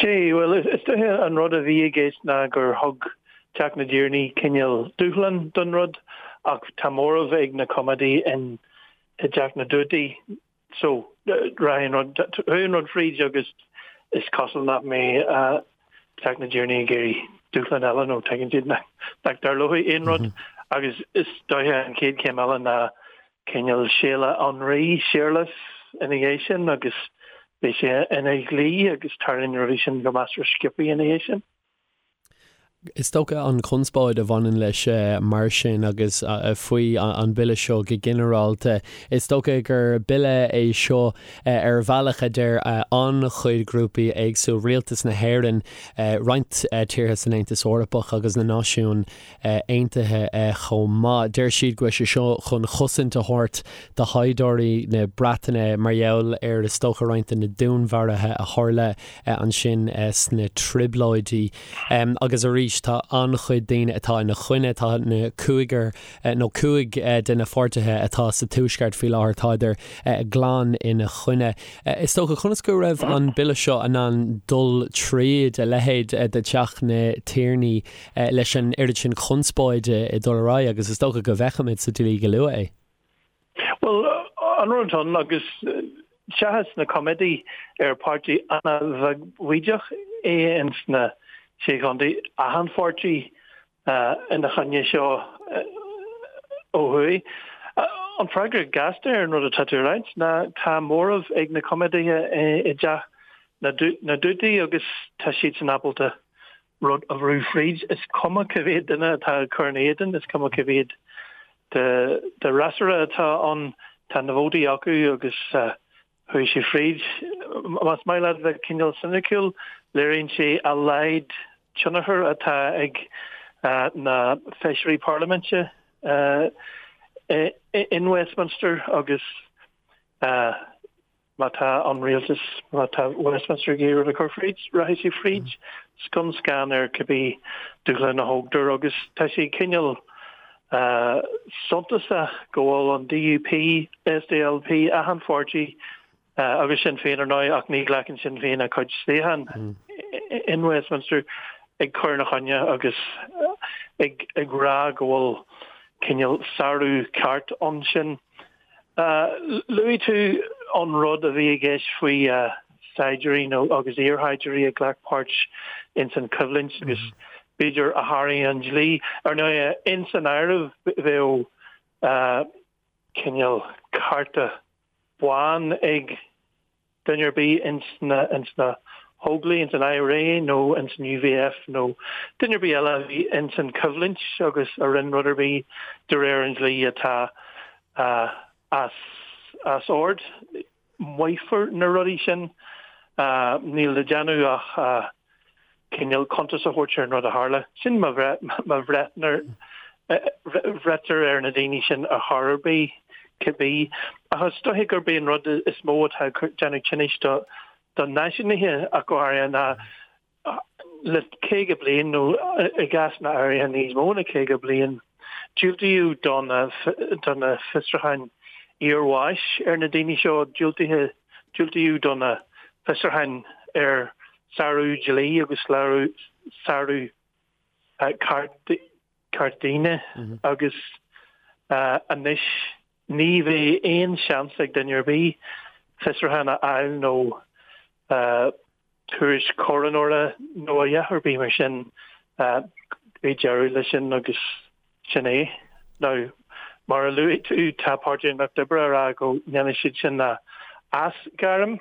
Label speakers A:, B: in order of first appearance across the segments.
A: Sea, bhuel, is dóiche an rud a bhí i gceist ná gur thug Teach na dTiarnaí cineál dúshlán don rud ach tá móramh ag na Coimeádaigh in i dTeach na dTuataí so rachaidh an rud, chuaigh an rud fríd agus is cosúil nach mbeidh Teach na dTiarnaí ag iarraidh dúshlán eile nó tuigeann siad nach dtarlóidh aon rud agus is dóiche an chéad chéim eile ná cineál Séala an Rí, Séarlas, ina dhiaidh sin agus beidh sé ina dhlí agus tarlaíonn na rudaí sin go measartha sciobtha ina dhiaidh sin.
B: Is dócha an chonspóid a bhaineann leis mar sin agus faoi an bille seo go ginearálta, is dócha gur bille é seo ar bhealach a deir an-chuid grúpaí éagsúil, Rialtas na hÉireann, roinnt tíortha san Aontas Eorpach agus na Náisiúin Aontaithe chomh maith. Deir siad go bhfuil sé seo chun chosaint a thabhairt do shaighdiúirí na Breataine mar gheall ar is dócha roinnt de na dúnmharuithe a tharla ansin sna Trioblóidí. Agus arís tá an-chuid daoine atá ina choinne, tá na cúigear nó 5 de na pháirtithe atá sa Tuaisceart faoi láthair, tádar glan ina choinne. Is dócha, conas go raibh an bille seo in ann dul tríd a leithéid de Theach na Tiarnaí leis an oiread sin conspóide ag dul ar aghaidh agus is dócha go bhfeicfimid sa dlí go luath é.
A: Bhuel, an rud atá ann, agus seachas na Coimeádaigh ar páirtí an-bheagbhaoideach é ins na Sé Chontae, achan pháirtí ina choinne seo ó thuaidh. An freagra gasta ar an rud atá tú a ráit ná tá móramh ag na Coimeádaithe i dTeach na dTuataí agus tá siadsan ábalta rud a bhrú fríd. Is cuma cá mhéad duine atá ag cur ina éadan, is cuma cá mhéad de fhreasúra atá ann, tá na vótaí acu agus chuaigh sé fríd. Más maith leat bheith cineál soiniciúil, léiríonn sé a laghad tionchair atá ag na feisirí parlaiminte in Westminster agus Má tá an rialtas, má tá Westminster ag iarraidh rud a chur fríd, rachaidh sé fríd scun scan ar cibé dúshlán a thógtar agus tá sé cineál suntasach go bhfuil an DUP, SDLP, achan pháirtí agus Sinn Féin ar ndóigh ach ní ghlacann Sinn Féin a cuid suíochán in Westminster ag cur ina choinne agus ag rá go bhfuil cineál sárú ceart ansin. Luaigh tú an rud a bhí i gceist faoi saighdiúirí nó agus iarshaighdiúirí a ghlac páirt ins an choimhlint agus b'fhéidir a sháraigh an dlí. Ar ndóigh, ins an áireamh bheadh cineál cárta bán ag duine ar bith ins na ins na hÓglaigh, ins an IRA nó ins an UVF nó duine ar bith eile a bhí ins an choimhlint agus a rinne rud ar bith de réir an dlí atá as as ord. Maífear na rudaí sin. Níl le déanamh ach cineál cuntas a thabhairt ar an rud a tharla. Sin má bhreitear ar na daoine sin ar chor ar bith, cibé. Ach is dóiche gurb é an rud is mó atá ag déanamh tinnis do náisiúnaithe ach go háirithe ná le 50 bliain nó i gcásanna áirithe níos mó ná 50 bliain, diúltaíodh do na fiosrúcháin iarbháis ar na daoine seo, diúltaíodh do na fiosrúcháin ar sárú dlí agus sárú ceart daoine agus anois ní bheidh aon seans ag duine ar bith fiosrúchán a fháil nó tuairisc choróinéara nó a dhath ar bith mar sin. Beidh deireadh leis sin agus sin é. Now, mar a luaigh tú, tá Páirtí an Lucht Oibre a rá go ndéanfaidh siad sin a aisghairm.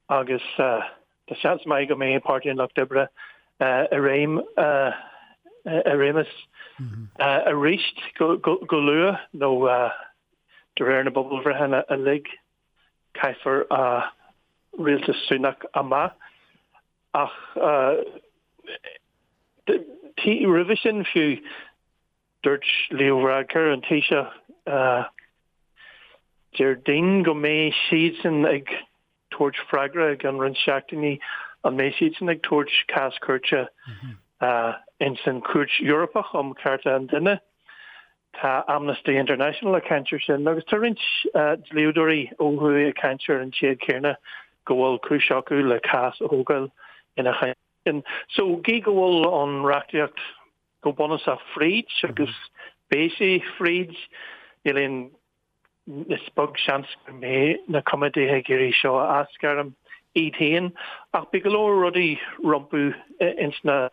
A: agus tá seans maith go mbeidh Páirtí an Lucht Oibre i réim i réimeas arís go luath nó de réir na bpobalbhreitheanna uilig caithfear rialtas Sunak amach. Ach roimhe sin fiú Dúirt Leo Varadkar, an Taoiseach, Déardaoin go mbeidh siadsan ag tabhairt freagra i gceann roinnt seachtainí, an mbeidh siadsan ag tabhairt cás cúirte ins an Chúirt Eorpach um Chearta an Duine. Tá Amnesty International ag caint ar sin agus tá roinnt dlíodóirí ó thuaidh ag caint ar an téad céanna. go bhfuil cúis acu le cás a thógáil ina choinne. So, gí go bhfuil an reachtaíocht go bunúsach fríd agus beidh sé fríd, níl aon, is beag seans go mbeidh na coimeádaithe ag iarraidh seo a aisghairm iad féin, ach beidh go leor rudaí rompu ins na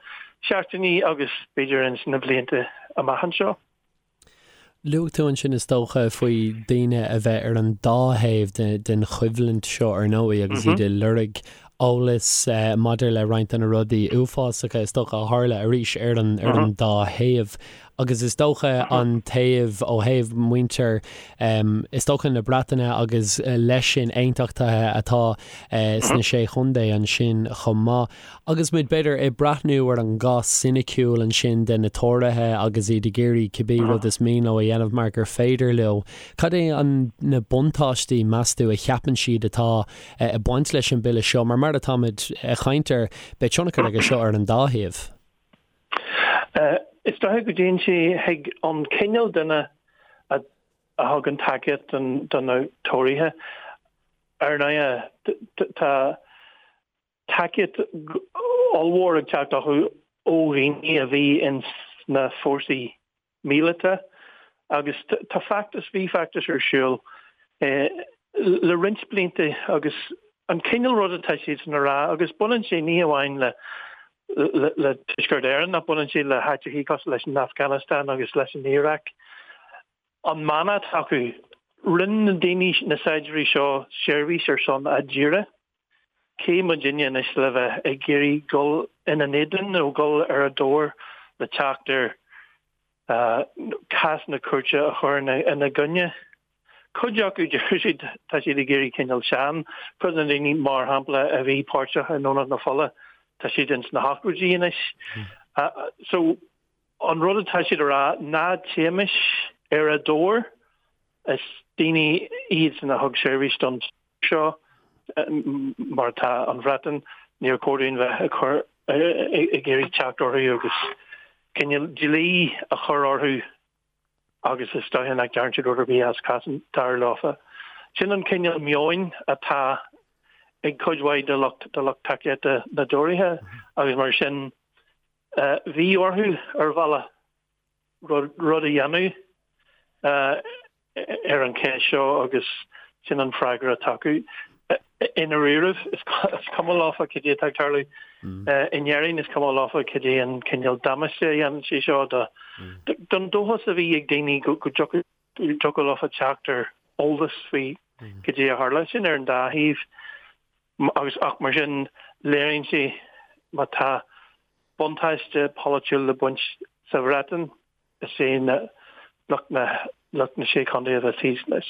A: seachtainí agus b'fhéidir ins na blianta amach anseo.
B: Luaigh tú ansin is dócha faoi daoine a bheith ar an dá thaobh den choimhlint seo ar ndóigh agus iad ag lorg eolas maidir le roinnt de na rudaí uafásacha is dócha a tharla arís ar an ar an dá thaobh agus is dócha an taobh ó thaobh muintir is dócha na Breataine agus leis sin aontachtaithe atá sna Sé Chontae ansin chomh maith. Agus muid, b'fhéidir, ag breathnú ar an gcás soiniciúil ansin de na Tóraithe agus iad ag iarraidh cibé rud is mian leo a dhéanamh mar gur féidir leo, cad é an, na buntáistí, meas tú, a cheapann siad atá ag baint leis an bhille seo? Mar mar atáimid ag caint air, beidh tionchar aige seo ar an dá thaobh.
A: Is dócha go dtéann sé chuig an cineál duine a thugann tacaíocht do na Tóraithe. Ar ndóigh, tá. tacaíocht ollmhór ag teacht acu ó dhaoine a bhí ins na fórsaí míleata agus tá feachtas, bhí feachtas ar siúl le roinnt blianta agus an cineál rud atá siadsan a rá agus baineann sé ní amháin le le Tuaisceart Éireann ach baineann sé le háiteachaí cosúil leis an Afghanistan agus leis an Iaráic. An mana atá acu, rinne na daoine, na saighdiúirí seo seirbhís ar son a dtíre. Cé muidinne anois le bheith ag iarraidh dul ina n-éadan nó dul ar a dtóir le teacht ar cásanna cúirte a chur ina gcoinne? Cuid acu, deir siad, tá siad ag éirí cineál sean. Cuid de na daoine, mar shampla, a bhí páirteach i nDomhnach na Fola, tá siad ins na hochtóidí anois. So, an rud atá siad a rá, ná téimis ar a dtóir. Is daoine iadsan a thug seirbhís don seo, mar atá an Bhreatain, níor chóir dúinn bheith ag cur, ag iarraidh teacht orthu agus cineál dlí a chur orthu agus is dóiche nach ndearna siad rud ar bith as cás dar leofa. Sin an cineál meoin atá ag cuid mhaith de lucht de lucht tacaíochta na dTóraithe agus mar sin bhí orthu ar bhealach rud a dhéanamh ar an cheist seo agus sin an freagra atá acu. I ndáiríribh, is cuma leofa cad é atá ag tarlú in Éirinn, is cuma leofa cad é an cineál damáiste a dhéanann sé seo don dóchas a bhí ag daoine go dtiocfadh leofa teacht ar eolas faoi cad é a tharla. Sin ar an dá thaobh agus ach mar sin léiríonn sé má tá buntáiste polaitiúil le baint sa Bhreatain, is é na lucht na lucht na Sé Chontae a bheas thíos leis.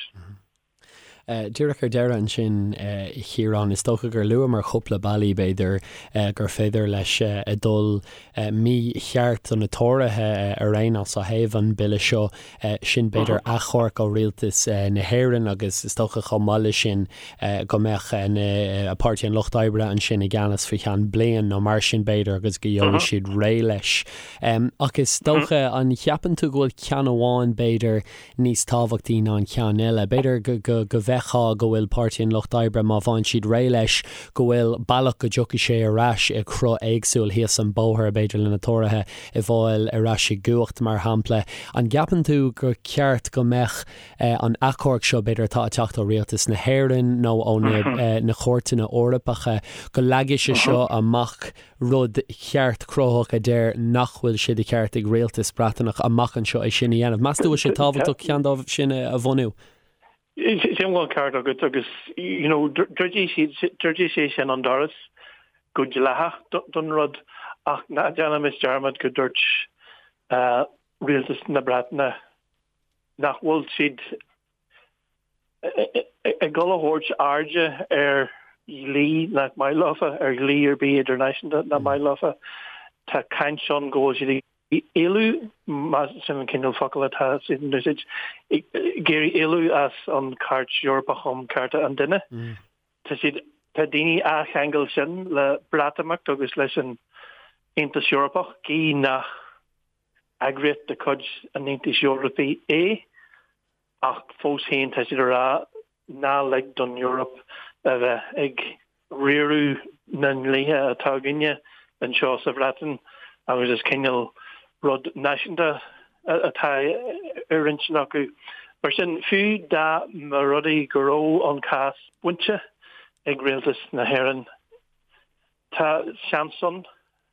B: Díreach ar deireadh ansin, a Chiaráin, is dócha gur luamar cúpla bealaí, b'fhéidir, gur féidir leis a dhul mícheart do na Tóraithe ar aon nós ó thaobh an bille seo, sin b'fhéidir achomharc ó rialtas na hÉireann agus is dócha chomh maith leis sin go mbeadh na Páirtí an Lucht Oibre ansin i gceannas faoi cheann bliain nó mar sin b'fhéidir agus go gheobhaidh siad réidh leis. Ach is dócha, an cheapann tú go bhfuil ceann amháin b'fhéidir níos tábhachtaí ná an ceann eile? B'fhéidir go go bhfeicfeá go bhfuil Páirtí an Lucht Oibre, má bhfaigheann siad réidh leis, go bhfuil bealach go dtiocfaidh sé ar ais i gcruth éagsúil thíos an bóthar, b'fhéidir le na Tóraithe a fháil ar ais i gcumhacht, mar shampla. An gceapann tú gur ceart go mbeadh an achomharc seo, b'fhéidir, atá ag teacht ó Rialtas na hÉireann nó ó na cúirteanna Eorpacha, go leagfaidh sé seo amach rud ceart cruthaitheach a deir nach bhfuil sé de cheart ag rialtas Breataineach amach anseo é sin a dhéanamh. Meas tú bhfuil sé tábhachtach ceann dóibh sin a bhunú?
A: Sílim go bhfuil an ceart agat agus you know druidfidh druidfidh sé sin an doras go dleathach don rud ach ná déanaimis dearmad go dúirt rialtas na Breataine nach bhfuil siad ag dul a thabhairt airde ar dhlí nach maith leofa, ar dhlí ar bith idirnáisiúnta nach maith leofa. Tá caint ann go bhfuil siad ag éalú, más sin an cineál focal atá siad in úsáid, ag iarraidh éalú as an Chairt Eorpach um Chearta an Duine. Tá siad, tá daoine á cheangal sin le Breatimeacht agus leis an Aontas Eorpach, gí nach eagraíocht de chuid an Aontais Eorpaigh é, ach fós féin tá siad ag rá ná lig don Eoraip a bheith ag. riaradh na ndlíthe atá againne anseo sa Bhreatain agus is cineál rud náisiúnta atá ar intinn acu. Mar sin, fiú dá mba rud é go raibh an cás bainte ag Rialtas na hÉireann, tá seans ann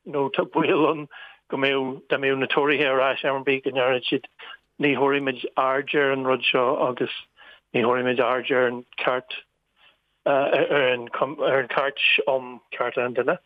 A: nó tá baol ann go mbeadh, dá mbeadh na Tóraithe ar ais am ar bith, go ndéarfadh siad ní thabharfaimid aird ar an rud seo agus ní thabharfaimid aird ar an ceart, ar an Chairt um Chearta an Duine.